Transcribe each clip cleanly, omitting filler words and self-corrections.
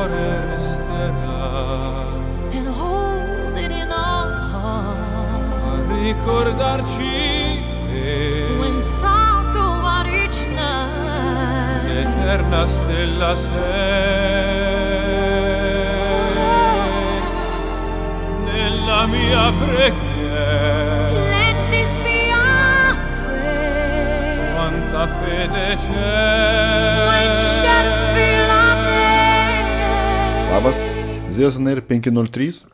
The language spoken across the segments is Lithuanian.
cuore resterà and hold it in our heart. a ricordarci che When stars go out each night, l'eterna stella sei nella mia preghiera. let this be our prayer. Quanta fede c'è. White shadows fill our day. Labas, Zeus on Air 503,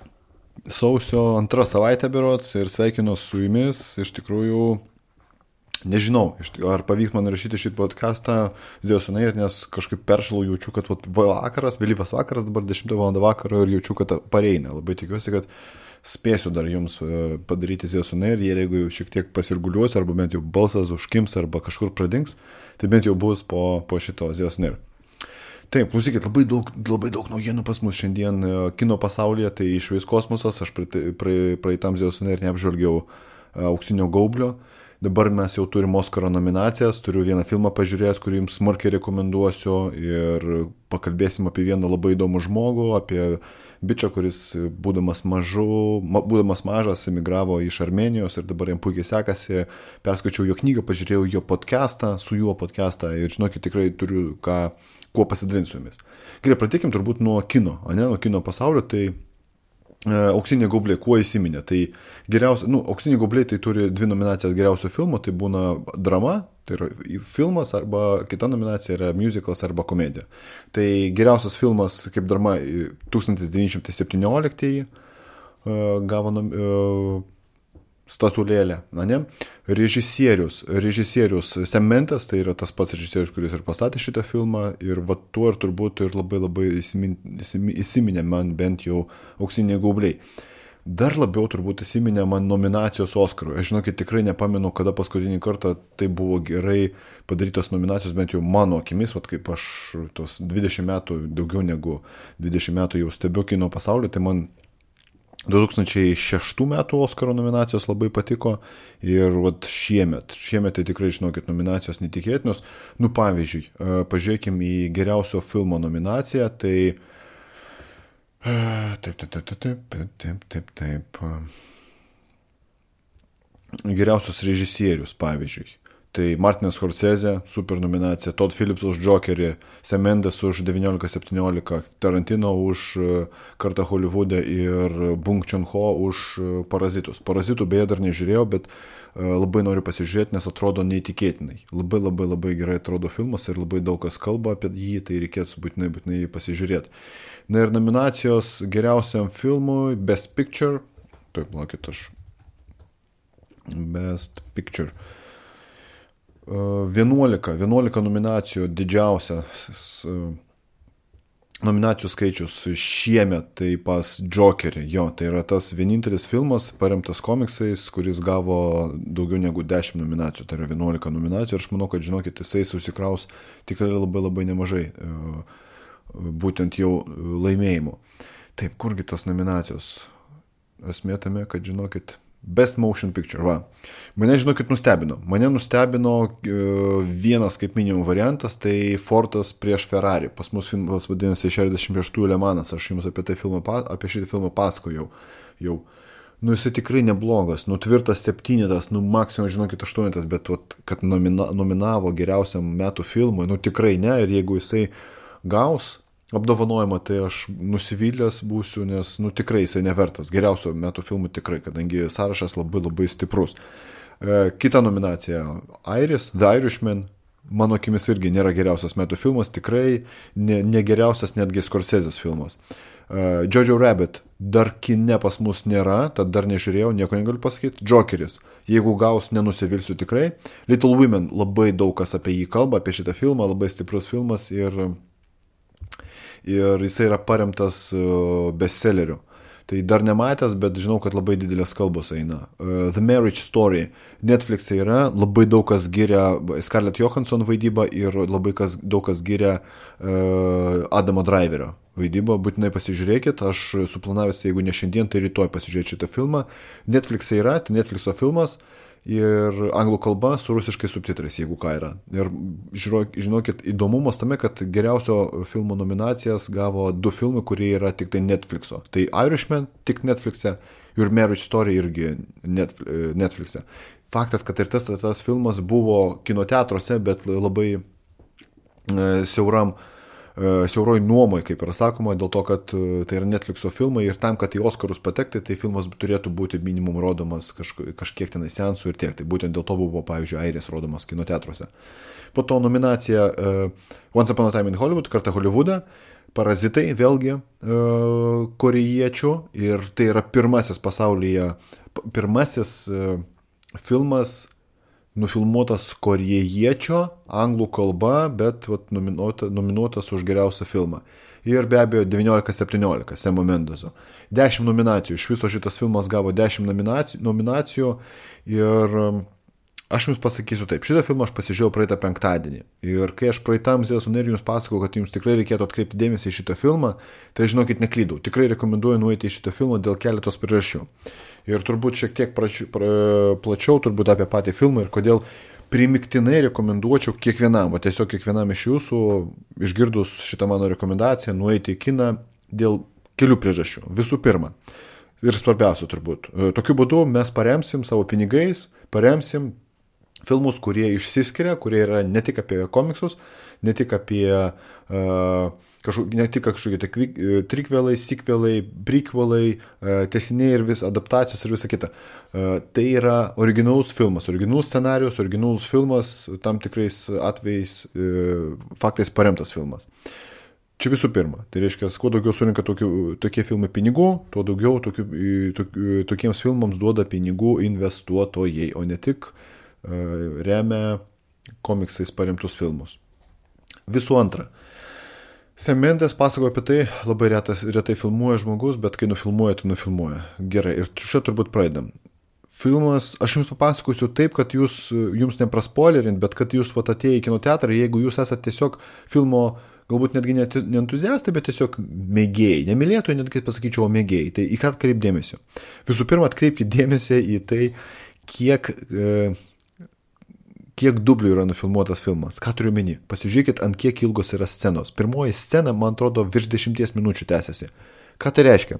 sausio 2 savaitė berods ir sveikinu su jumis. Iš tikrųjų, nežinau, ar pavyks man rašyti šį podcastą Zeus on Air, nes kažkaip peršalau, jaučiu, kad vakaras, vėlyvas vakaras, dabar 10 val. Vakaro ir jaučiu, kad pareina. Labai tikiuosi, kad spėsiu dar jums padaryti Zeus on Air, ir jeigu šiek tiek pasirguliuosiu, arba bent jau balsas užkims, arba kažkur pradings, tai bent jau bus po šito Zeus on Air. Taip, klausykit, labai daug naujienų pas mus šiandien kino pasaulyje, tai išvis kosmosas, aš praeitam Zeus on Air neapžvelgiau Auksinio gaublio, dabar mes jau turim Oskaro nominacijas, turiu vieną filmą pažiūrėjęs, kurį jums smarkiai rekomenduosiu, ir pakalbėsim apie vieną labai įdomų žmogų, apie bičą, kuris būdamas mažas emigravo iš Armenijos ir dabar jam puikiai sekasi, perskaičiau jo knygą, pažiūrėjau jo podcastą, su juo podcastą, ir žinokit, tikrai turiu kuo pasidalinti su jumis. Gerai, pradėkim turbūt nuo kino, nuo kino pasaulio. Tai Auksiniai gaubliai kuo įsiminė? Tai geriausia, Auksiniai gaubliai tai turi 2 nominacijas geriausio filmo, tai būna drama, tai yra filmas, arba kita nominacija yra musicals arba komedija. Tai geriausias filmas kaip drama 1917 gavo statulėlę, ne? Režisierius Sam Mendes, tai yra tas pats režisierius, kuris ir pastatė šitą filmą, ir tuo ir turbūt ir labai įsiminė man bent jau Auksiniai gaubliai. Dar labiau turbūt įsiminė man nominacijos Oskarui. Aš žinokit, tikrai nepamenu, kada paskutinį kartą tai buvo gerai padarytos nominacijos, bent jau mano akimis, kaip aš tos 20 metų, daugiau negu 20 metų jau stebiu kino pasaulį, tai man 2006 metų Oskaro nominacijos labai patiko, ir šiemet tai tikrai, žinokit, nominacijos netikėtinos. Pavyzdžiui, pažiūrėkim į geriausio filmo nominaciją, tai taip. Geriausios režisierius, pavyzdžiui. Tai Martinas Scorsese, super nominacija, Todd Phillips už Jokerį, Sam Mendes už 1917, Tarantino už Kartą Holivude ir Bong Joon-ho už Parazitus. Parazitų beje dar nežiūrėjau, bet labai noriu pasižiūrėti, nes atrodo neįtikėtinai. Labai gerai atrodo filmas ir labai daug kas kalba apie jį, tai reikėtų būtinai pasižiūrėti. Na ir nominacijos geriausiam filmui Best Picture. Taip, laukit, Best Picture. 11 nominacijų, didžiausias nominacijų skaičius šiemet, tai pas Jokerį. Tai yra tas vienintelis filmas paremtas komiksais, kuris gavo daugiau negu 10 nominacijų, tai yra 11 nominacijų, ir aš manau, kad, žinokit, jisai susikraus tikrai labai nemažai būtent jau laimėjimų. Taip, kurgi tos nominacijos? Esmė tame, kad, žinokit, Best Motion Picture, Mane, žinokit, nustebino. Mane nustebino vienas kaip minimum variantas, tai Fordas prieš Ferrari. Pas mus filmas vadinasi 66 Le Manas, aš jums apie šitą filmą pasakojau jau. Jisai tikrai neblogas, tvirtas 7, maksimum, žinokit, 8, bet kad nominavo geriausiam metų filmui, tikrai ne, ir jeigu jisai gaus apdovanojimą, tai aš nusivylęs būsiu, nes tikrai jisai nevertas geriausio metų filmų, tikrai, kadangi sąrašas labai stiprus. Kita nominacija Iris, The Irishman, mano akimis irgi nėra geriausias metų filmas, tikrai ne geriausias netgi Scorsese's filmas. Jojo Rabbit dar kine pas mus nėra, tad dar nežiūrėjau, nieko negaliu pasakyti. Jokeris, jeigu gaus, nenusivilsiu tikrai. Little Women, labai daug kas apie jį kalba, apie šitą filmą, labai stiprus filmas, ir jisai yra paremtas bestselleriu. Tai dar nematęs, bet žinau, kad labai didelės kalbos eina. The Marriage Story. Netflix'e yra, labai daug kas giria Scarlett Johansson vaidybą, ir labai daug kas giria Adamo Driverio vaidybą. Būtinai pasižiūrėkit, aš suplanavęs, jeigu ne šiandien, tai rytoj pasižiūrėti šitą filmą. Netflix'e yra, tai Netflix'o filmas. ir anglų kalba su rusiškai subtitrais, jeigu ką yra. Ir žinokit, įdomumas tame, kad geriausio filmo nominacijas gavo 2 filmai, kurie yra tik tai Netflix'o. Tai Irishman tik Netflix'e ir Marriage Story irgi Netflix'e. Faktas, kad ir tas filmas buvo kinoteatruose, bet labai siauroj nuomoj, kaip yra sakoma, dėl to, kad tai yra Netflix'o filmai ir tam, kad į Oskarus patekti, tai filmas turėtų būti minimum rodomas kažkiek tenai seansų ir tiek. Tai būtent dėl to buvo, pavyzdžiui, Airės rodomas kinoteatruose. Po to nominacija Once Upon a Time in Hollywood, kartą Hollywoodą, Parazitai, vėlgi korėjiečių, ir tai yra pirmasis pasaulyje, filmas nufilmuotas korėjiečio, anglų kalba, bet nominuotas už geriausią filmą. Ir be abejo 19-17 Semo Mendeso. 10 nominacijų. Iš viso šitas filmas gavo 10 nominacijų. Ir aš jums pasakysiu taip. Šitą filmą aš pasižiūrėjau praeitą penktadienį. Ir kai aš praeitam Zėjas Uner jums pasakau, kad jums tikrai reikėtų atkreipti dėmesį į šitą filmą, tai žinokit, neklydau. Tikrai rekomenduoju nueiti į šitą filmą dėl keletos priežasčių. Ir turbūt šiek tiek plačiau turbūt apie patį filmą ir kodėl primiktinai rekomenduočiau kiekvienam, o tiesiog kiekvienam iš jūsų, išgirdus šitą mano rekomendaciją, nueiti į kiną dėl kelių priežasčių. Visų pirma, ir svarbiausia turbūt, tokiu būdu mes paremsim savo pinigais, paremsim filmus, kurie išsiskiria, kurie yra ne tik apie komiksus, ne tik apie kažkokie trikvelai, sikvelai, prequelai, tęsiniai ir adaptacijos ir visa kita. Tai yra originalus filmas, originalus scenarius, originalus filmas, tam tikrais atvejais faktais paremtas filmas. Čia visų pirma, tai reiškia, kuo daugiau surinka tokie filmai pinigų, tuo daugiau tokiems filmams duoda pinigų investuotojai, o ne tik remia komiksais paremtus filmus. Visų antra, Sam Mendes pasakoja apie tai, labai retai filmuoja žmogus, bet kai nufilmuoja, tai nufilmuoja. Gerai, ir čia turbūt pradedam. Filmas, aš jums papasakosiu taip, kad jums nepraspoilerint, bet kad jūs atėję į kinoteatrą, jeigu jūs esate tiesiog filmo, galbūt netgi ne entuziastai, bet tiesiog mėgėjai, nemylėtojai, netgi pasakyčiau, mėgėjai. Tai į ką atkreip dėmesio? Visų pirma, atkreipkite dėmesį į tai, kiek dublių yra nufilmuotas filmas. Ką turiu meni? Pasižiūrėkit, ant kiek ilgos yra scenos. Pirmoji scena, man atrodo, virš 10 minučių tęsiasi. Ką tai reiškia?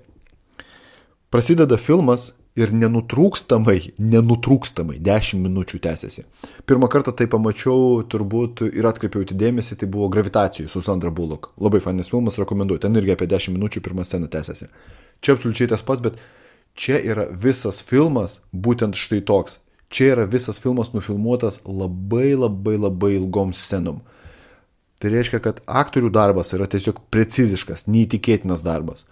Prasideda filmas ir nenutrūkstamai 10 minučių tęsiasi. Pirmą kartą tai pamačiau, turbūt ir atkreipiau į dėmesį, tai buvo Gravitacijų su Sandra Bullock. Labai fainas filmas, rekomenduoju. Ten irgi apie 10 minučių pirmą sceną tęsiasi. Čia absoliučiai tas pats, bet čia yra visas filmas būtent štai toks. Čia yra visas filmas nufilmuotas labai ilgom scenom. Tai reiškia, kad aktorių darbas yra tiesiog preciziškas, neįtikėtinas darbas.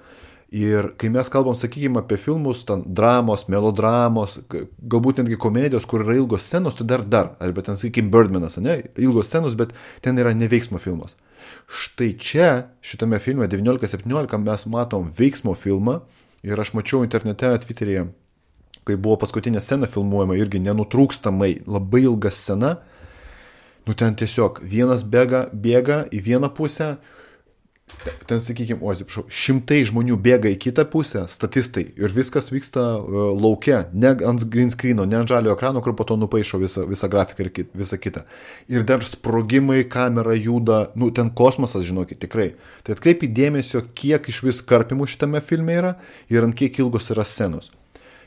Ir kai mes kalbam, sakykime, apie filmus, ten dramos, melodramos, galbūt netgi komedijos, kur yra ilgos scenos, tai dar, arba ten, sakykime, Birdmanas, ne, ilgos scenos, bet ten yra neveiksmo filmas. Štai čia, šitame filme 19-17 mes matom veiksmo filmą ir aš mačiau internete, Twitteryje, kai buvo paskutinė scena filmuojama, irgi nenutrūkstamai, labai ilga scena, ten tiesiog vienas bėga į vieną pusę, ten, sakykime, šimtai žmonių bėga į kitą pusę, statistai, ir viskas vyksta lauke, ne ant green screeno, ne ant žalio ekrano, kur po to nupaišo visą grafiką ir visą kitą. Ir dar sprogimai, kamera juda, ten kosmosas, žinokit, tikrai. Tai atkreipi dėmesio, kiek iš vis karpimų šitame filme yra ir ant kiek ilgos yra scenos.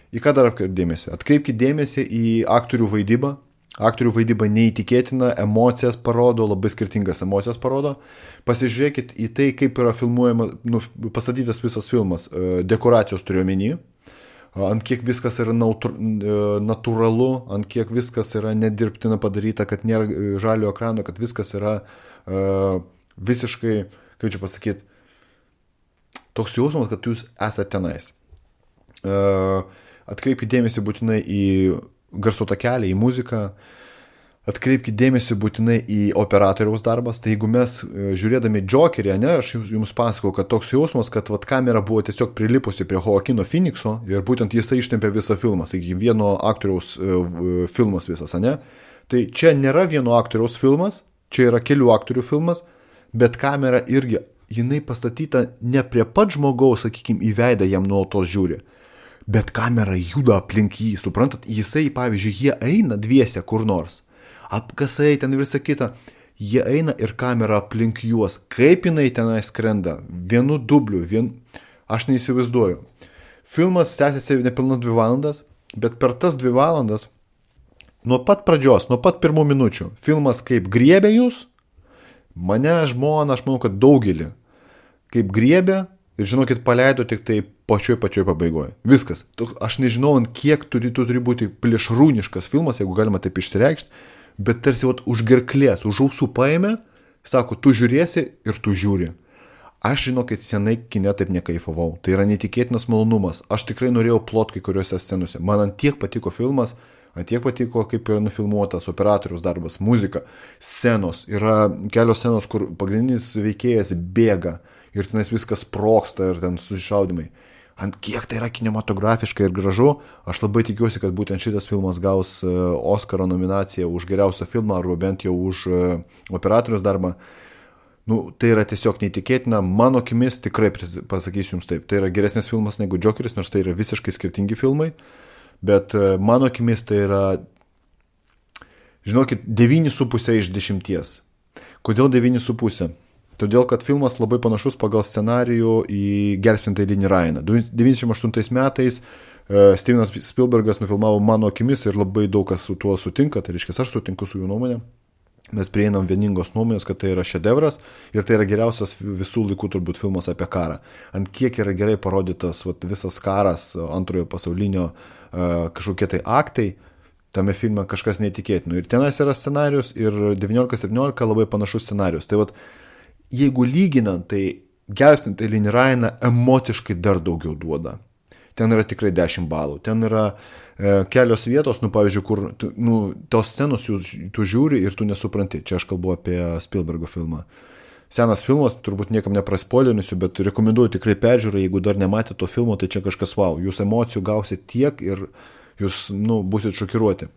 Į ką dar atkreipti dėmesį? Atkreipkite dėmesį į aktorių vaidybą. Aktorių vaidyba neįtikėtina, emocijas parodo, labai skirtingas emocijas parodo. Pasižiūrėkit į tai, kaip yra filmuojama, pastatytas visas filmas. Dekoracijos turiu omeny. Ant kiek viskas yra natūralu, ant kiek viskas yra nedirbtina padaryta, kad nėra žalio ekrano, kad viskas yra visiškai, kaip čia pasakyti, toks jausmas, kad jūs esate tenais. Atkreipkite dėmesį būtinai į garso takelį, į muziką, atkreipkite dėmesį būtinai į operatoriaus darbas. Tai jeigu mes žiūrėdami Jokerį, aš jums pasakau, kad toks jausmas, kad kamera buvo tiesiog prilipusi prie Joaquino Phoenixo ir būtent jisai ištempė visą filmą, sakykime, vieno aktoriaus filmas visas, ne? Tai čia nėra vieno aktoriaus filmas, čia yra kelių aktorių filmas, bet kamera irgi, jinai pastatyta ne prie pat žmogaus, sakykime, į veidą jam nuolatos žiūri. bet kamera juda aplink jį, suprantat, jisai, pavyzdžiui, jie eina dviese kur nors, apkasai ten visą kitą, jie eina ir kamera aplink juos, kaip jinai tenai skrenda, vienu dubliu, aš neįsivaizduoju. Filmas tęsiasi nepilnas 2 valandas, bet per tas 2 valandas, nuo pat pradžios, nuo pat pirmų minučių, filmas kaip griebė jūs, mane, žmoną, aš manau, kad daugelį, kaip griebė, ir žinokit, paleido tik tai pačioj pabaigoje. Viskas. Aš nežinau, ant kiek turi būti plėšrūniškas filmas, jeigu galima taip išsireikšti, bet tarsi už gerklės, už ausų paėmė, sako, tu žiūrėsi ir tu žiūri. Aš žinokit, senai kine taip nekaifavau. Tai yra netikėtinas malonumas. Aš tikrai norėjau plot kai kuriuose scenose. Man ant tiek patiko filmas, ant tiek patiko, kaip yra nufilmuotas operatoriaus darbas, muzika, scenos. Yra kelios scenos, kur pagrindinis veikėjas bėga ir tenais viskas sprogsta ir ten susišaudimai. Ant kiek tai yra kinematografiška ir gražu, aš labai tikiuosi, kad būtent šitas filmas gaus Oskaro nominaciją už geriausią filmą arba bent jau už operatoriaus darbą. Tai yra tiesiog neįtikėtina, mano akimis tikrai pasakysiu jums taip, tai yra geresnis filmas negu Džokeris, nors tai yra visiškai skirtingi filmai, bet mano akimis tai yra, žinokit, 9,5 iš 10. Kodėl 9,5? Todėl, kad filmas labai panašus pagal scenarijų į Gelbstintąjį Linį Ryaną. 98 metais Stevenas Spielbergas nufilmavo mano akimis ir labai daug kas su tuo sutinka, tai reiškia, aš sutinku su jų nuomonė. Mes prieinam vieningos nuomonės, kad tai yra šedevras ir tai yra geriausias visų laikų turbūt filmas apie karą. Ant kiek yra gerai parodytas visas karas, antrojo pasaulinio kažkokie tai aktai, tame filme kažkas neįtikėtino. Ir tenais yra scenarius ir 19-17 labai panašus scenarius. Tai jeigu lyginant, tai Gelbstintąjį Linį Ryaną emociškai dar daugiau duoda. Ten yra tikrai 10 balų. Ten yra kelios vietos, pavyzdžiui, kur tos scenos tu žiūri ir tu nesupranti. Čia aš kalbu apie Spielbergo filmą. Senas filmas, turbūt niekam nepraspoilinsiu, bet rekomenduoju tikrai peržiūrą, jeigu dar nematėte to filmo, tai čia kažkas wow. Jūs emocijų gausit tiek ir jūs, būsit šokiruoti.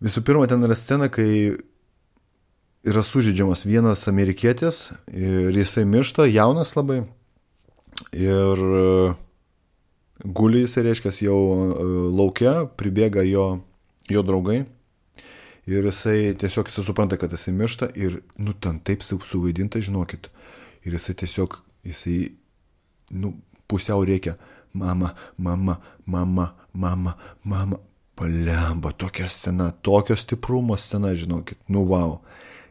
Visų pirma, ten yra scena, kai yra sužeidžiamas vienas amerikietis ir jisai miršta, jaunas labai. Ir guli jisai, reiškia, jau laukia, pribėga jo draugai ir jisai tiesiog supranta, kad jisai miršta ir, ten taip suvaidinta, žinokit. Ir jisai tiesiog, pusiau reikia, mama, palemba, tokia scena, tokio stiprumo scena, žinokit, wow.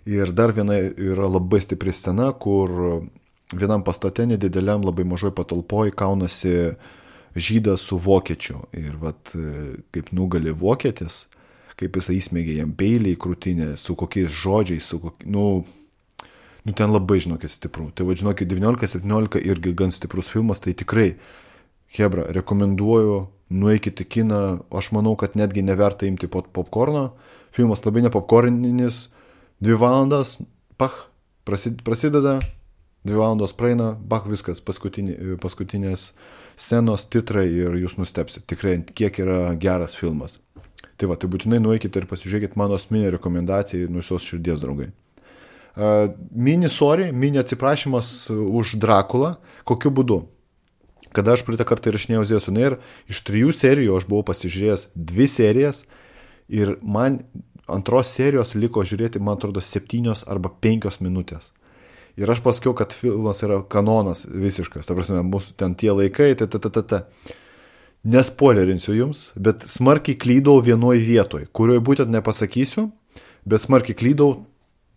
Ir dar viena yra labai stipri scena, kur vienam pastate nedideliam labai mažoj patalpoj kaunasi žydas su vokiečiu. Ir kaip nugali vokietis, kaip jisai įsmėgė jam peilį į krūtinę, su kokiais žodžiais, ten labai, žinokit, stipru. Tai žinokit, 19-17 irgi gan stiprus filmas, tai tikrai, hebra, rekomenduoju, nueikite į kiną, aš manau, kad netgi neverta imti popkorno. Filmas labai nepopkorninis, 2 valandas, prasideda, 2 valandos praeina, viskas, paskutinės scenos, titrai ir jūs nustepsit. Tikrai, kiek yra geras filmas. Tai būtinai nueikite ir pasižiūrėkite mano asmeninę rekomendaciją nuo visos širdies, draugai. Mini atsiprašymas už Drakulą. Kokiu būdu? Kada aš praeitą kartą įrašinėjau Zėjas on Air, iš 3 serijų aš buvau pasižiūrėjęs 2 serijas ir man antros serijos liko žiūrėti, man atrodo, 7 arba 5 minutės. Ir aš pasakiau, kad filmas yra kanonas visiškas, ta prasme, mūsų ten tie laikai, Nespoilerinsiu jums, bet smarkiai klydau vienoj vietoj, kurioje būtent nepasakysiu, bet smarkiai klydau,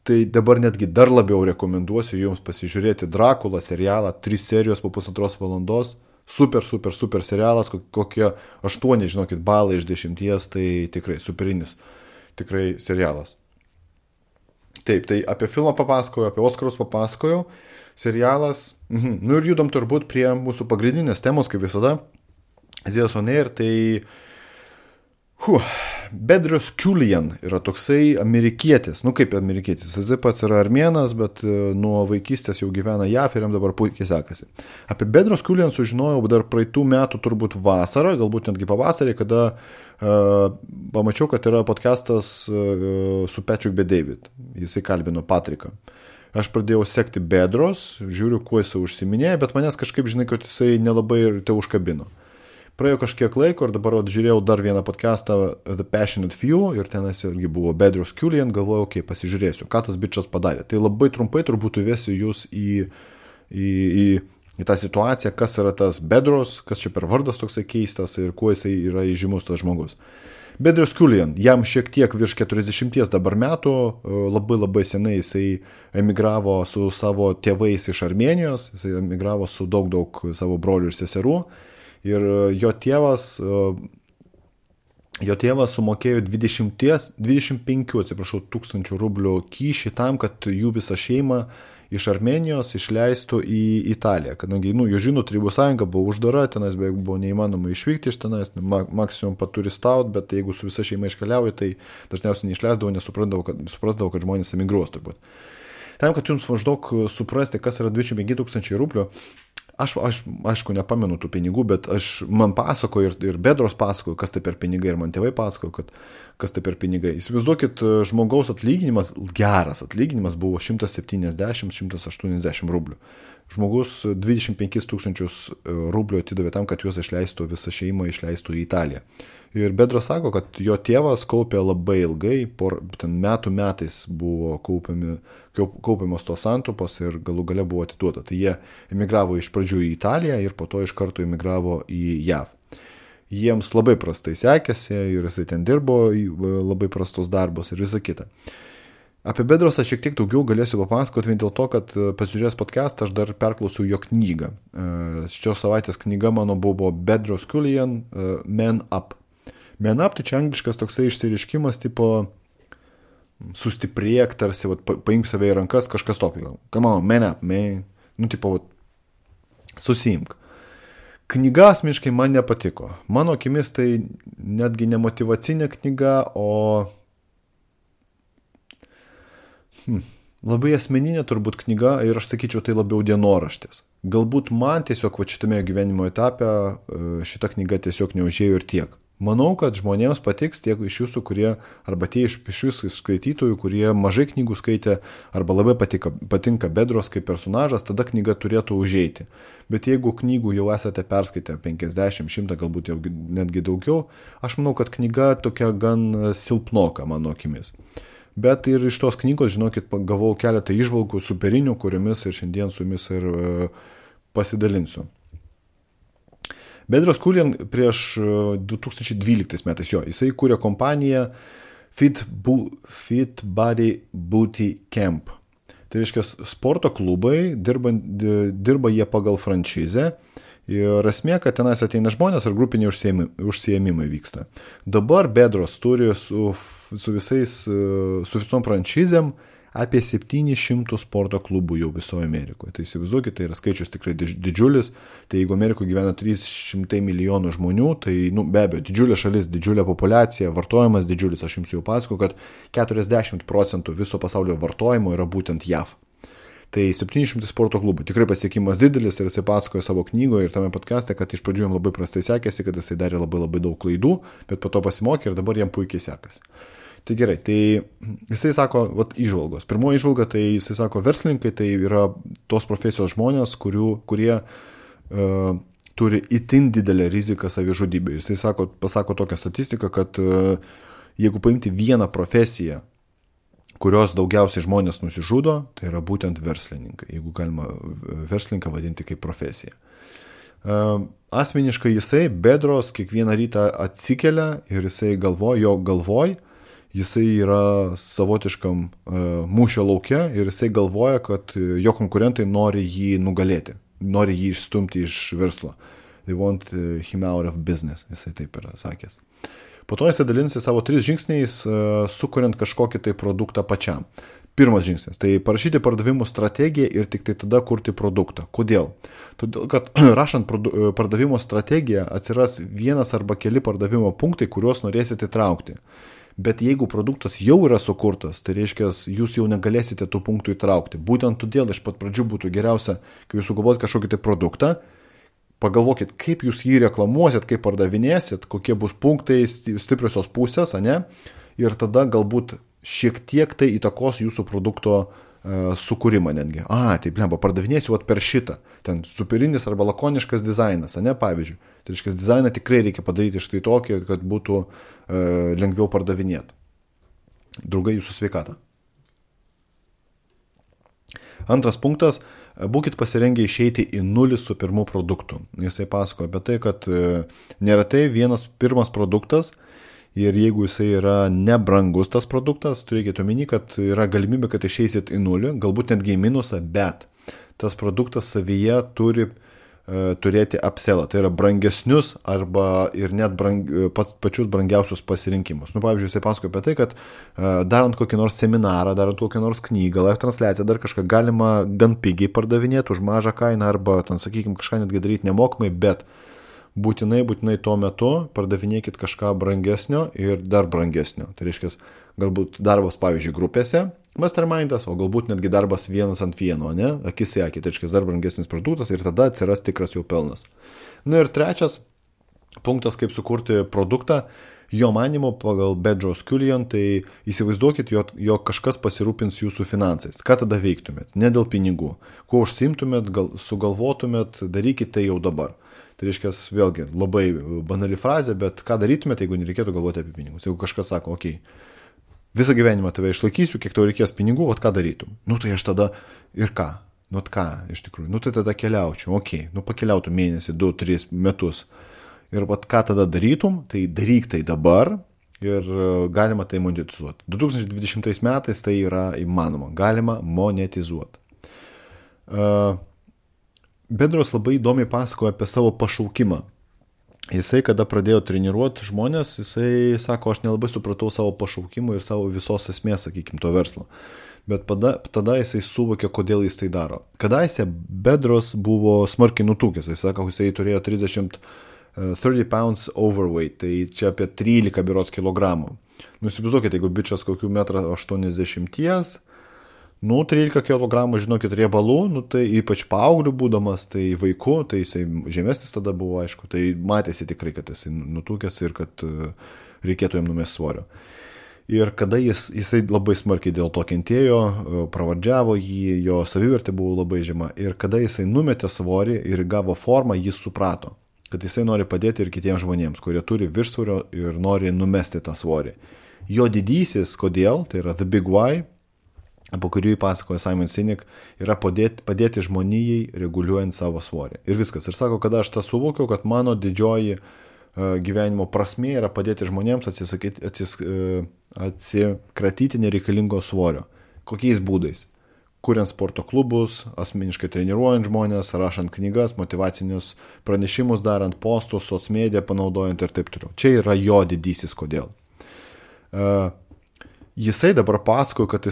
tai dabar netgi dar labiau rekomenduosiu jums pasižiūrėti Drakulą serialą, 3 serijos po 1,5 valandos, super serialas, kokie 8, žinokit, balai iš 10, tai tikrai superinis, tikrai serialas. Taip, tai apie filmą papasakojau, apie Oskarus papasakojau, serialas, ir judam turbūt prie mūsų pagrindinės temos, kaip visada, Zėjas on Air, tai Bedros Keuilian yra toksai amerikietis, kaip amerikietis, jis pats yra armėnas, bet nuo vaikystės jau gyvena JAV ir jam dabar puikiai sekasi. Apie Bedros Keuilian sužinojau dar praeitų metų turbūt vasarą, galbūt netgi pavasarį, kada pamačiau, kad yra podcastas su Patrick Bet-David, jisai kalbino Patriką. Aš pradėjau sekti Bedros, žiūriu, kuo jisai užsiminėjo, bet manęs kažkaip, žinai, kad jisai nelabai ir te užkabino. Praėjo kažkiek laiko ir dabar žiūrėjau dar vieną podcastą The Passionate Few ir tenas irgi buvo Bedros Keulian, galvojau, pasižiūrėsiu, ką tas bičas padarė. Tai labai trumpai turbūt įvesiu jūs į tą situaciją, kas yra tas Bedros, kas čia per vardas toksai keistas ir kuo jisai yra įžymus tas žmogus. Bedros Keulian, jam šiek tiek virš 40 dabar metų, labai senai jisai emigravo su savo tėvais iš Armėnijos, jisai emigravo su daug savo brolių ir seserų. Ir jo tėvas sumokėjo 25 tūkstančių rublių kyšį tam, kad jų visą šeimą iš Armėnijos išleistų į Italiją. Kadangi, jūs žinot, Tarybų sąjunga buvo uždara, tenais beveik buvo neįmanoma išvykti iš tenais, maksimum paturistaut, bet jeigu su visa šeima iškeliauja, tai dažniausiai neišleisdavo, nes suprasdavo, kad žmonės emigruos turbūt. Tam, kad jums maždaug suprasti, kas yra 25 tūkstančiai rublių, aš aišku nepamenu tų pinigų, bet man pasakoju ir Bedros pasakoju, kas tai per pinigai, ir man tėvai pasakoju, kas tai per pinigai. Įsivaizduokit, žmogaus atlyginimas, geras atlyginimas buvo 170-180 rublių. Žmogus 25 tūkstančius rublių atidavė tam, kad juos išleistų, visą šeimą išleistų į Italiją. Ir Bedros sako, kad jo tėvas kaupė labai ilgai, metais buvo kaupiamos tos santupos ir galų gale buvo atiduota. Tai jie emigravo iš pradžių į Italiją ir po to iš karto emigravo į JAV. Jiems labai prastai sekėsi ir jisai ten dirbo labai prastus darbus ir visa kita. Apie Bedrosą šiek tiek daugiau galėsiu papasakoti vien dėl to, kad pasižiūrėjęs podcastą aš dar perklausiau jo knygą. Šios savaitės knyga mano buvo Bedros Keulian Man Up. Man Up tai čia angliškas toksai išsireiškimas tipo sustiprėk, tarsi paimk save į rankas, kažkas tokio. Come on, man up, man. Susiimk. Knyga asmeniškai man nepatiko. Mano akimis tai netgi ne motyvacinė knyga, o labai asmeninė turbūt knyga ir aš sakyčiau tai labiau dienoraštis. Galbūt man tiesiog šitame gyvenimo etape šita knyga tiesiog neužėjo ir tiek. Manau, kad žmonėms patiks tiek iš jūsų, kurie, arba tie iš jūsų skaitytojų, kurie mažai knygų skaitė, arba labai patinka Bedros kaip personažas, tada knyga turėtų užeiti. Bet jeigu knygų jau esate perskaitę 50, 100, galbūt jau netgi daugiau, aš manau, kad knyga tokia gan silpnoka mano akimis. Bet ir iš tos knygos, žinokit, gavau keletą įžvalgų superinių, kuriomis ir šiandien su jumis ir pasidalinsiu. Bedros Keulian prieš 2012 metais jisai kūrė kompaniją Fit Body Booty Camp. Tai reiškia sporto klubai, dirba jie pagal franšizę ir esmė, kad tenais ateina žmonės ir grupiniai užsiėmimai vyksta. Dabar Bedros turi su visom franšizėm apie 700 sporto klubų jau visoje Amerikoje. Tai įsivaizduokit, tai yra skaičius tikrai didžiulis. Tai jeigu Amerikoje gyvena 300 milijonų žmonių, tai be abejo, didžiulė šalis, didžiulė populiacija, vartojimas didžiulis. Aš jums jau pasakoju, kad 40% viso pasaulio vartojimo yra būtent JAV. Tai 700 sporto klubų. Tikrai pasiekimas didelis ir jisai pasakojo savo knygoje ir tame podcaste, kad iš pradžių jam labai prastai sekėsi, kad jisai darė labai daug klaidų, bet po to pasimokė ir dabar jam puikiai sekasi. Tai gerai, tai jisai sako, įžvalgos. Pirmoji įžvalga, tai jisai sako, verslininkai tai yra tos profesijos žmonės, kurie turi itin didelę riziką savižudybę. Jisai pasako tokią statistiką, kad jeigu paimti vieną profesiją, kurios daugiausiai žmonės nusižudo, tai yra būtent verslininkai, jeigu galima verslininką vadinti kaip profesiją. Asmeniškai jisai, Bedros, kiekvieną rytą atsikelia ir jisai galvoj, jisai yra savotiškam mūšio lauke ir jisai galvoja, kad jo konkurentai nori jį nugalėti, nori jį išstumti iš verslo. They want him out of business, jisai taip yra sakęs. Po to jisai dalinasi savo 3 žingsniais, sukuriant kažkokį tai produktą pačiam. Pirmas žingsnis, tai parašyti pardavimų strategiją ir tik tai tada kurti produktą. Kodėl? Todėl, kad rašant pardavimo strategiją atsiras vienas arba keli pardavimo punktai, kuriuos norėsite įtraukti. Bet jeigu produktas jau yra sukurtas, tai reiškia, jūs jau negalėsite tų punktų įtraukti. Būtent todėl iš pat pradžių būtų geriausia, kai jūs sugalvojat kažkokį tai produktą, pagalvokit, kaip jūs jį reklamuosit, kaip pardavinėsit, kokie bus punktai, stipriosios pusės, ane? Ir tada galbūt šiek tiek tai įtakos jūsų produkto sukūrimą netgi. Tai blemba, pardavinėsiu per šitą. Ten superinis arba lakoniškas dizainas, ne, pavyzdžiui. Tai reiškia, dizainą tikrai reikia padaryti štai tokį, kad būtų lengviau pardavinėti. Draugai, jūsų sveikata. Antras punktas, būkit pasirengę išeiti į nulį su pirmu produktu. Jisai pasako apie tai, kad neretai pirmas produktas ir jeigu jisai yra nebrangus tas produktas, turėkite omeny, kad yra galimybė, kad išeisit į nulį, galbūt netgi į minusą, bet tas produktas savyje turi turėti upsellą, tai yra brangesnius arba ir net pačius brangiausius pasirinkimus. Pavyzdžiui, jisai pasakoja apie tai, kad darant kokį nors seminarą, darant kokią nors knygą, live transliaciją, dar kažką galima gan pigiai pardavinėti už mažą kainą arba, sakykime, kažką netgi daryti nemokamai, bet būtinai tuo metu pardavinėkit kažką brangesnio ir dar brangesnio. Tai reiškia, galbūt darbas, pavyzdžiui, grupėse, mastermindas, o galbūt netgi darbas 1-1, ne? Akis į akį, tai reiškia dar brangesnis produktas ir tada atsiras tikras jau pelnas. Ir trečias punktas, kaip sukurti produktą, jo manymu pagal Bedros Kulian, tai įsivaizduokit, jog kažkas pasirūpins jūsų finansais. Ką tada veiktumėt? Ne dėl pinigų. Kuo užsiimtumėt, sugalvotumėt, darykit tai jau dabar. Tai reiškia, vėlgi, labai banali frazė, bet ką darytumėt, jeigu nereikėtų galvoti apie pinigus? Jeigu kažkas sako, visą gyvenimą tave išlaikysiu, kiek tau reikės pinigų, ką darytum? Tai aš tada ir ką? Ką, iš tikrųjų? Tai tada keliaučiau, pakeliautum mėnesį, 2-3 metus. Ir ką tada darytum? Tai daryk tai dabar ir galima tai monetizuoti. 2020 metais tai yra įmanoma, galima monetizuoti. Bedros labai įdomiai pasakoja apie savo pašaukimą. Jisai, kada pradėjo treniruoti žmonės, jisai sako, aš nelabai supratau savo pašaukimą ir savo visos esmės, sakykime, to verslo. Bet tada jisai suvokė, kodėl jis tai daro. Kadaise Bedros buvo smarkiai nutukęs, jisai sako, jisai turėjo 30 pounds overweight, tai čia apie 13 berods kilogramų. Įsivaizduokite, jeigu bičias kokių 1,80 m, 13 kg, žinokit, riebalų, tai ypač paauglių būdamas, tai vaikų, tai jisai žemesnis tada buvo, aišku, tai matėsi tikrai, kad jisai nutukęs ir kad reikėtų jam numesti svorio. Ir kada jisai labai smarkiai dėl to kentėjo, pravardžiavo jį, jo savivertė buvo labai žema, ir kada jisai numetė svorį ir gavo formą, jis suprato, kad jisai nori padėti ir kitiems žmonėms, kurie turi viršsvorio ir nori numesti tą svorį. Jo didysis, kodėl, tai yra The Big Why, po kurį pasakoja Simon Sinek, yra padėti žmonijai reguliuojant savo svorį. Ir viskas. Ir sako, kada aš tą suvokiau, kad mano didžioji gyvenimo prasmė yra padėti žmonėms atsikratyti nereikalingo svorio. Kokiais būdais? Kuriant sporto klubus, asmeniškai treniruojant žmonės, rašant knygas, motyvacinius pranešimus darant, postus, socmediją panaudojant ir taip toliau. Čia yra jo didysis kodėl. Jisai dabar pasakoja, kad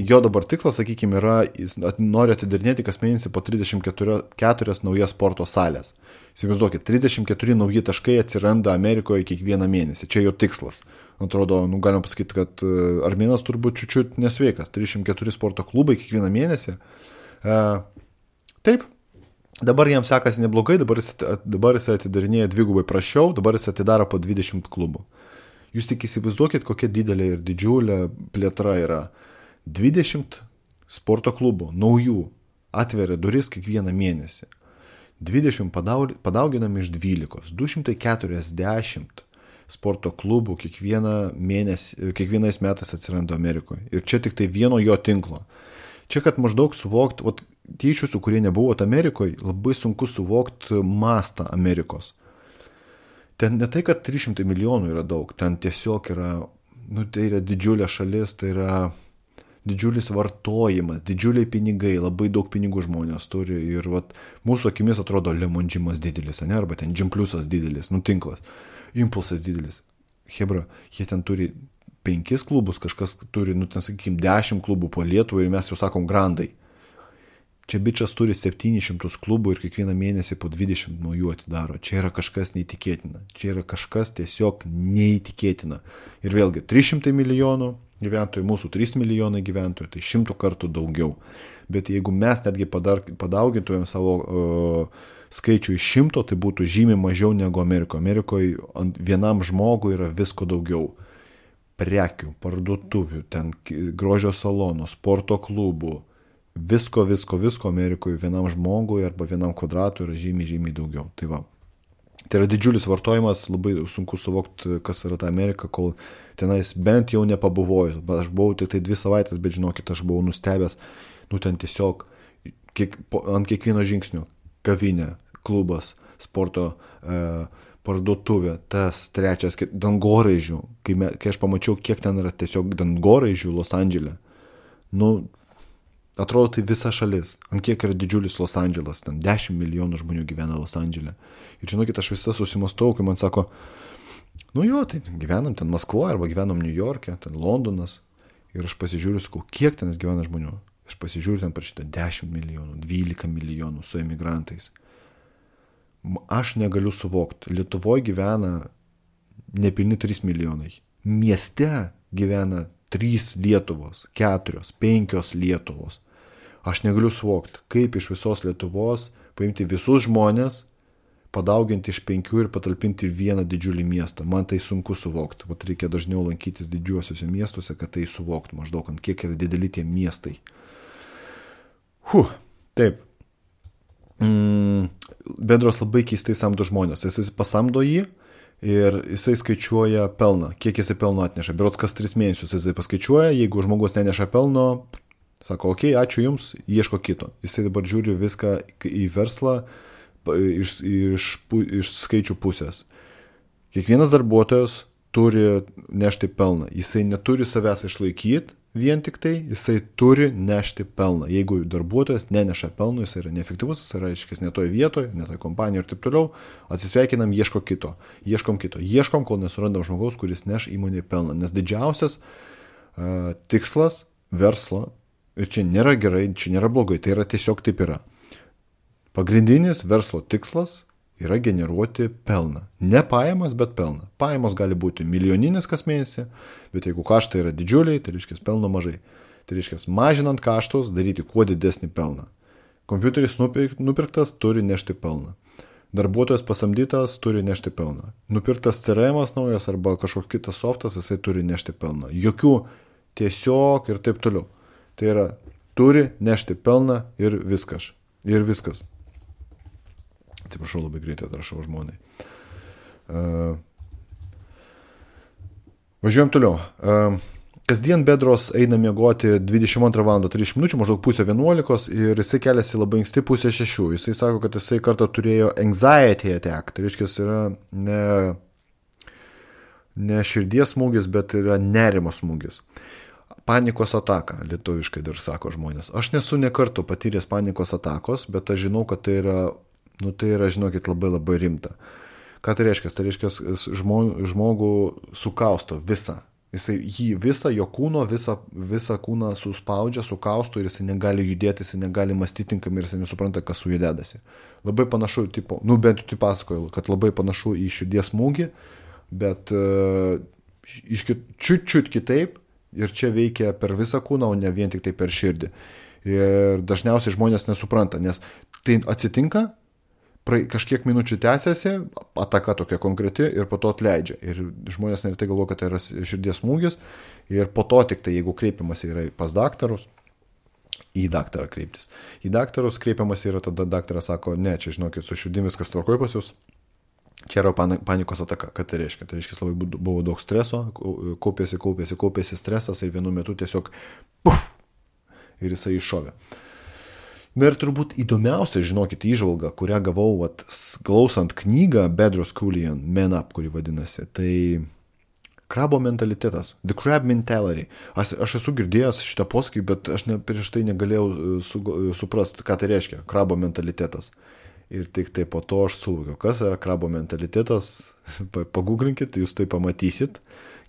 jo dabar tikslas, sakykime, yra, jis nori atidarinėti kas mėnesį po 34 naujas sporto salės. Įsivaizduokit, 34 nauji taškai atsiranda Amerikoje kiekvieną mėnesį. Čia jo tikslas. Atrodo, galima pasakyti, kad armėnas turbūt čiučiut nesveikas. 34 sporto klubai kiekvieną mėnesį. Taip, dabar jam sekasi neblogai, dabar jis atidarinėja dvigubai prašiau, dabar jis atidaro po 20 klubų. Jūs tik įsivaizduokit, kokia didelė ir didžiulė plėtra yra. 20 sporto klubų, naujų, atveria duris kiekvieną mėnesį. 20 padauginam iš 12, 240 sporto klubų kiekvienais metais atsiranda Amerikoje. Ir čia tik tai vieno jo tinklo. Čia, kad maždaug suvokti, tie iš jūsų, kurie nebuvot Amerikoje, labai sunku suvokti mastą Amerikos. Ten ne tai, kad 300 milijonų yra daug, ten tiesiog yra, tai yra didžiulė šalis, tai yra didžiulis vartojimas, didžiuliai pinigai, labai daug pinigų žmonės turi ir mūsų akimis atrodo Lemondžimas didelis, ne, arba ten Džimpliusas didelis, tinklas, Impulsas didelis. Hebra, jie ten turi 5 klubus, kažkas turi, ten sakykime, 10 klubų po Lietuvą ir mes jau sakom grandai. Čia bičias turi 700 klubų ir kiekvieną mėnesį po 20 naujų atidaro. Čia yra kažkas neįtikėtina. Čia yra kažkas tiesiog neįtikėtina. Ir vėlgi, 300 milijonų gyventojų, mūsų 3 milijonai gyventojų, tai 100 kartų daugiau. Bet jeigu mes netgi padaugintumėm savo skaičių iš 100, tai būtų žymiai mažiau negu Amerikoje. Amerikoje vienam žmogui yra visko daugiau. Prekių, parduotuvių, ten grožio salonų, sporto klubų, visko Amerikoje vienam žmogui arba vienam kvadratui yra žymiai daugiau. Tai va. Tai yra didžiulis vartojimas, labai sunku suvokti, kas yra ta Amerika, kol tenais bent jau nepabuvojus. Aš buvau tik tai 2 savaitės, bet žinokit, aš buvau nustebęs, ten tiesiog ant kiekvieno žingsnio kavinė, klubas, sporto parduotuvė, tas trečias, dangoraižių. Kai aš pamačiau, kiek ten yra tiesiog dangoraižių Los Andžele, atrodo tai visa šalis. Ant kiek yra didžiulis Los Andželas, ten 10 milijonų žmonių gyvena Los Andžele. Ir žinokit, aš visą susimastau, kai man sako, tai gyvenam ten Maskvoje arba gyvenam New York'e, ten Londonas. Ir aš pasižiūriu, sakau, kiek ten gyvena žmonių. Aš pasižiūriu, ten parašyta 10 milijonų, 12 milijonų su emigrantais. Aš negaliu suvokti. Lietuvoje gyvena nepilni 3 milijonai. Mieste gyvena 3 Lietuvos, 4, 5 Lietuvos. Aš negaliu suvokti, kaip iš visos Lietuvos paimti visus žmonės, padauginti iš 5 ir patalpinti vieną didžiulį miestą. Man tai sunku suvokti. Vat reikia dažniau lankytis didžiuosiuose miestuose, kad tai suvokti maždaug, ant kiek yra dideli tie miestai. Taip. Bedros labai keistai samdo žmonės. Jis pasamdo jį ir jisai skaičiuoja pelną. Kiek jisai pelno atneša. Berods kas 3 mėnesius jisai paskaičiuoja. Jeigu žmogus neneša pelno, sako, ačiū jums, ieško kito. Jisai dabar žiūri viską į verslą iš skaičių pusės. Kiekvienas darbuotojas turi nešti pelną. Jisai neturi savęs išlaikyti vien tik tai, jisai turi nešti pelną. Jeigu darbuotojas neneša pelno, jisai yra neefektyvus, jisai yra ne toje vietoje, ne toje kompanijoje ir taip toliau, atsisveikinam, ieškom kito. Ieškom, kol nesurandam žmogaus, kuris neš įmonėje pelną. Nes didžiausias tikslas verslo, ir čia nėra gerai, čia nėra blogai, tai yra tiesiog taip yra. Pagrindinis verslo tikslas yra generuoti pelną. Ne pajamas, bet pelną. Pajamos gali būti milijoninės kas mėnesį, bet jeigu kaštai yra didžiuliai, tai reiškia pelno mažai. Tai reiškia mažinant kaštus, daryti kuo didesnį pelną. Kompiuteris nupirktas turi nešti pelną. Darbuotojas pasamdytas turi nešti pelną. Nupirktas CRM'as naujas arba kažkoks kitas softas, jisai turi nešti pelną. Jokių tiesiog ir taip toliau. Tai yra, turi nešti pelną ir viskas. Atsiprašau, labai greitai atrašau žmonai. Važiuojam toliau. Kasdien Bedros eina miegoti 22 val. 30 minučių, maždaug 10:30 ir jisai keliasi labai anksti 5:30. Jisai sako, kad jisai kartą turėjo anxiety attack. Tai reiškia, yra ne širdies smūgis, bet yra nerimo smūgis. Panikos ataka, lietuviškai dar sako žmonės. Aš nesu ne kartą patyręs panikos atakos, bet aš žinau, kad tai yra, žinokit, labai labai rimta. Ką tai reiškia? Tai reiškia, žmogų sukausto visą. Jį visą, jo kūno, visą kūną suspaudžia, sukausto ir jisai negali judėti, jisai negali mąstyti tinkamai ir jisai nesupranta, kas su juo dedasi. Labai panašu, bent jau tai pasakoju, kad labai panašu į širdies smūgį, bet čiut kitaip ir čia veikia per visą kūną, o ne vien tik tai per širdį. Ir dažniausiai žmonės nesupranta, nes tai atsitinka, kažkiek minučių tęsiasi, ataka tokia konkreti ir po to atleidžia. Ir žmonės neretai galvoja, kad tai yra širdies smūgis ir po to tik tai, jeigu kreipiamas yra pas daktarus, į daktarą kreiptis. Į daktarus kreipiamas yra, tada daktaras sako, ne, čia žinokit, su širdim viskas tvarkoj pas jūs. Čia yra panikos ataka. Ką tai reiškia? Tai reiškia, labai buvo daug streso, kaupėsi stresas ir vienu metu tiesiog ir jisai iššovė. Na ir turbūt įdomiausia, žinokit, įžvalga, kurią gavau klausant knygą Bedros Keuilian Man Up, kuri vadinasi, tai krabo mentalitetas, the crab mentality. Aš esu girdėjęs šitą posakį, bet aš prieš tai negalėjau suprasti, ką tai reiškia, krabo mentalitetas. Ir tik tai po to aš suvokiau, kas yra krabo mentalitetas, paguglinkit, jūs tai pamatysit,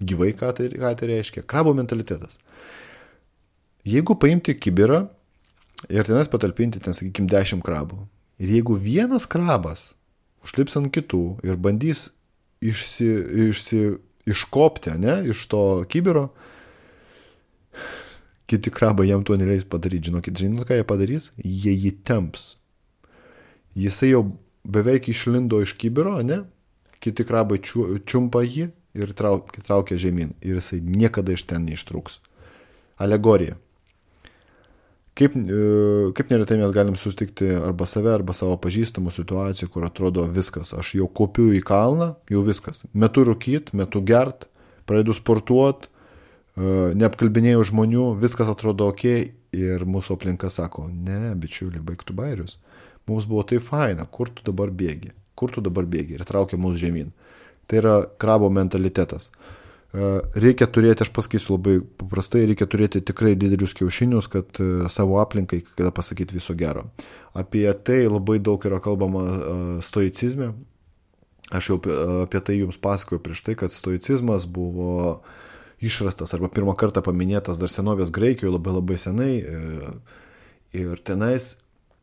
gyvai, ką tai reiškia. Krabo mentalitetas. Jeigu paimti kibirą, ir tenais patalpinti, sakykime, 10 krabų. Ir jeigu vienas krabas užlips ant kitų ir bandys iškopti, iš to kibiro, kiti krabai jam to neleis padaryti. Žinot, ką jie padarys? Jie jį temps. Jisai jau beveik išlindo iš kibiro, kiti krabai čiumpa jį ir traukia žemyn. Ir jisai niekada iš ten neištrūks. Alegorija. Kaip neretai mes galim susitikti arba save, arba savo pažįstamų situacijų, kur atrodo viskas, aš jau kopiu į kalną, jau viskas. Metu rūkyt, metu gert, pradedu sportuot, neapkalbinėjau žmonių, viskas atrodo ok ir mūsų aplinka sako, ne, bičiuli, baik tu bairius. Mums buvo tai faina, kur tu dabar bėgi ir traukia mus žemyn. Tai yra krabo mentalitetas. Reikia turėti, aš pasakysiu labai paprastai, reikia turėti tikrai didelius kiaušinius, kad savo aplinkai, kada pasakyti viso gero. Apie tai labai daug yra kalbama stoicizme. Aš jau apie tai jums pasakoju prieš tai, kad stoicizmas buvo išrastas arba pirmą kartą paminėtas dar senovės Graikijoje labai labai senai. Ir tenais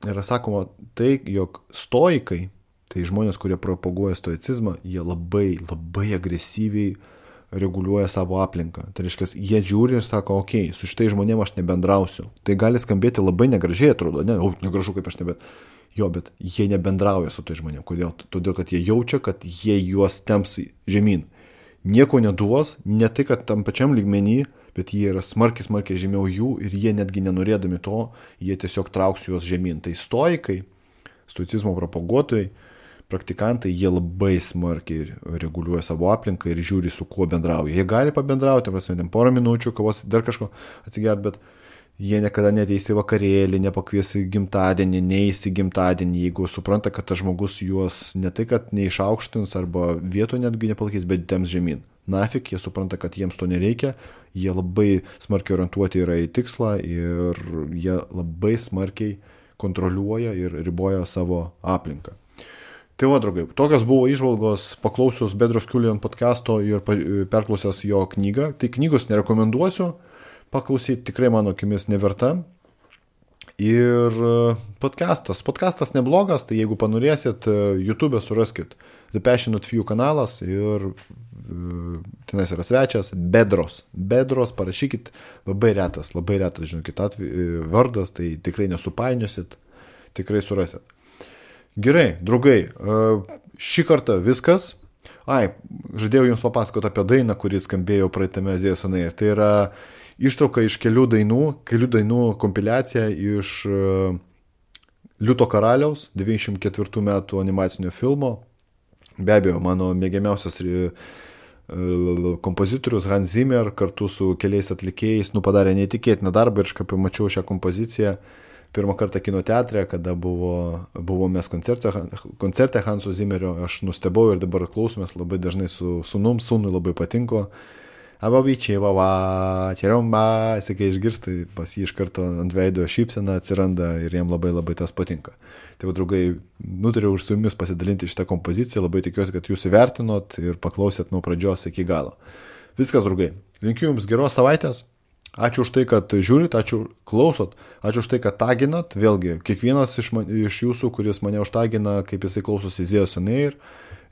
yra sakoma tai, jog stoikai, tai žmonės, kurie propaguoja stoicizmą, jie labai, labai agresyviai reguliuoja savo aplinką. Tai reiškia, jie žiūri ir sako, okei, su šitai žmonėm aš nebendrausiu. Tai gali skambėti labai negražiai, atrodo, negražu kaip aš bet jie nebendrauja su tai žmonėm. Kodėl? Todėl, kad jie jaučia, kad jie juos temps žemyn. Nieko neduos, ne tai, kad tam pačiam lygmenį, bet jie yra smarkiai žemiau jų ir jie netgi nenorėdami to, jie tiesiog trauks juos žemyn. Tai stoikai, stoicizmo propaguotojai, praktikantai, jie labai smarkiai reguliuoja savo aplinką ir žiūri, su kuo bendrauja. Jie gali pabendrauti, porą minučių, kavos, dar kažko atsigert, bet jie niekada neteis į vakarėlį, nepakvies į gimtadienį, neis į gimtadienį, jeigu supranta, kad tas žmogus juos ne tai, kad neišaukštins arba vietų netgi nepalaikys, bet temps žemyn. Nafik, jie supranta, kad jiems to nereikia, jie labai smarkiai orientuoti yra į tikslą ir jie labai smarkiai kontroliuoja ir riboja savo aplinką. Tai va, draugai, tokios buvo įžvalgos paklausius Bedros Kulian podcasto ir perklausęs jo knygą. Tai knygos nerekomenduosiu, paklausyti tikrai mano akimis neverta. Ir podcastas neblogas, tai jeigu panorėsit, YouTube suraskit The Passionate Few kanalas ir tenais yra svečias Bedros. Bedros, parašykit, labai retas, žinokit, vardas, tai tikrai nesupainiosit, tikrai surasit. Gerai, draugai, šį kartą viskas. Žadėjau jums papasakoti apie dainą, kuri skambėjo praeitame Azijos Onair. Tai yra ištrauka iš kelių dainų kompiliacija iš Liūto karaliaus 94 metų animacinio filmo. Be abejo, mano mėgiamiausias kompozitorius Hans Zimmer kartu su keliais atlikėjais padarė neįtikėtiną darbą ir aš kaip pamačiau šią kompoziciją pirmą kartą kino teatre, kada buvo mes koncerte Hanso Zimmerio, aš nustebau ir dabar klausomės labai dažnai su sūnui labai patinko. Ababyčiai, kai išgirstai, pas jį iš karto ant veido šypsena atsiranda ir jam labai labai tas patinka. Tai, draugai, nutariau ir su jumis pasidalinti šitą kompoziciją, labai tikiuosi, kad jūs įvertinot ir paklausėt nuo pradžios iki galo. Viskas, draugai, linkiu jums geros savaitės. Ačiū už tai, kad žiūrit, ačiū klausot, ačiū už tai, kad taginat. Vėlgi, kiekvienas iš jūsų, kuris mane užtagina, kaip jisai klausosi Azijos Onair,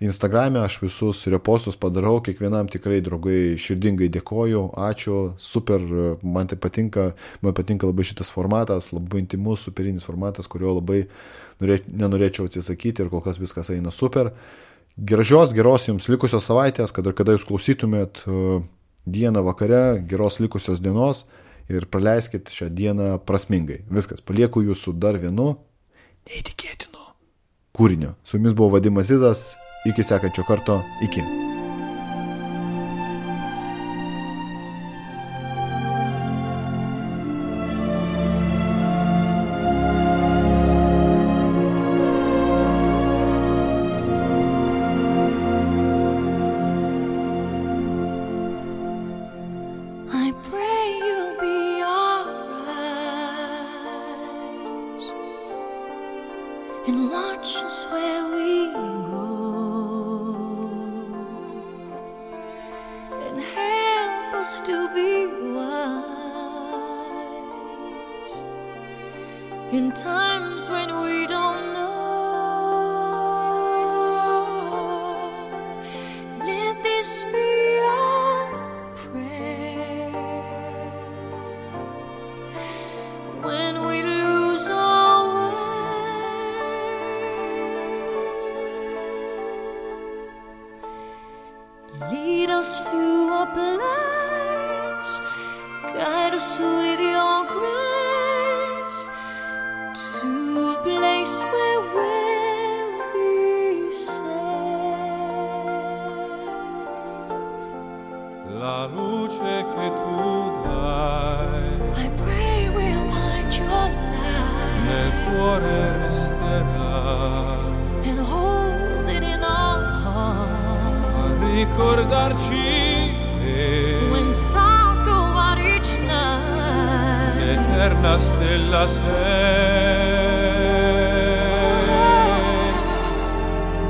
Instagrame aš visus repostus padarau, kiekvienam tikrai, draugai, širdingai dėkoju, ačiū, super, man tai patinka, labai šitas formatas, labai intimus, superinis formatas, kurio labai nenorėčiau atsisakyti ir kol kas viskas eina super. Geros jums likusios savaitės, kada jūs klausytumėt dieną vakare, geros likusios dienos ir praleiskit šią dieną prasmingai. Viskas, palieku jūs su dar vienu neįtikėtinu kūrinio. Su jumis buvo Vadimas Zizas, iki sekančio karto, iki. And watch us where we go, and help us to be wise in times when we don't know. Let this be our prayer when we lose our way. Lead us to a place, guide us with your grace, cuore resterà and hold it in our heart. a ricordarci che When stars go out each night, l'eterna stella sei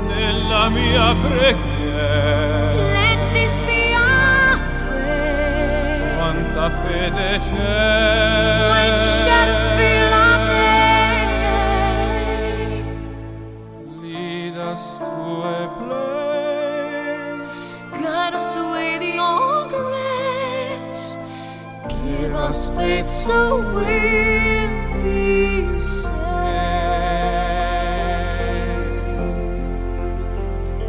nella mia preghiera. let this be our prayer. Quanta fede c'è When shadows fill our day, lead us to a place, guide us with your grace. Give us faith so we'll be saved.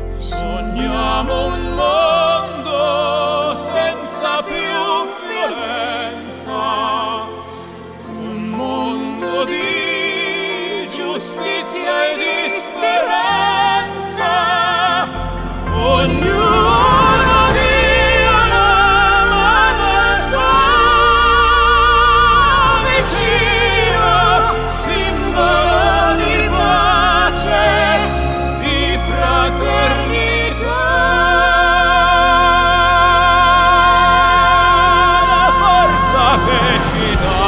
sogniamo un mondo senza più violenza, un mondo di giustizia e di speranza. Ognuno dia la mano sua vicino, simbolo di pace, di fraternità. La forza che ci dà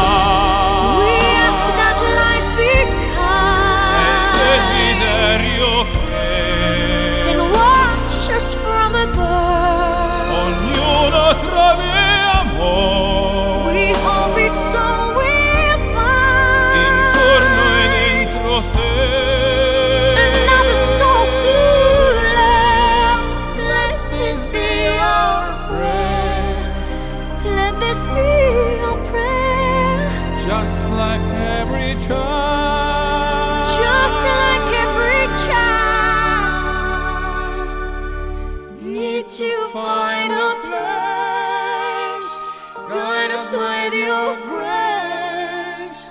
We ask that life be è il kind desiderio che and watch us from above. ognuno trovi amore We hope it's so we'll find intorno e dentro sé. another soul to love. Let this be our prayer. Let this be our prayer. Just like every child, Just like every child, need to find a place. Guide us with your grace.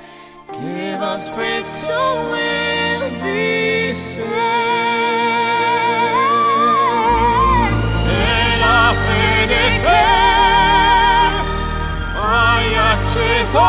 Give us faith so we'll be saved. e la fede che hai acceso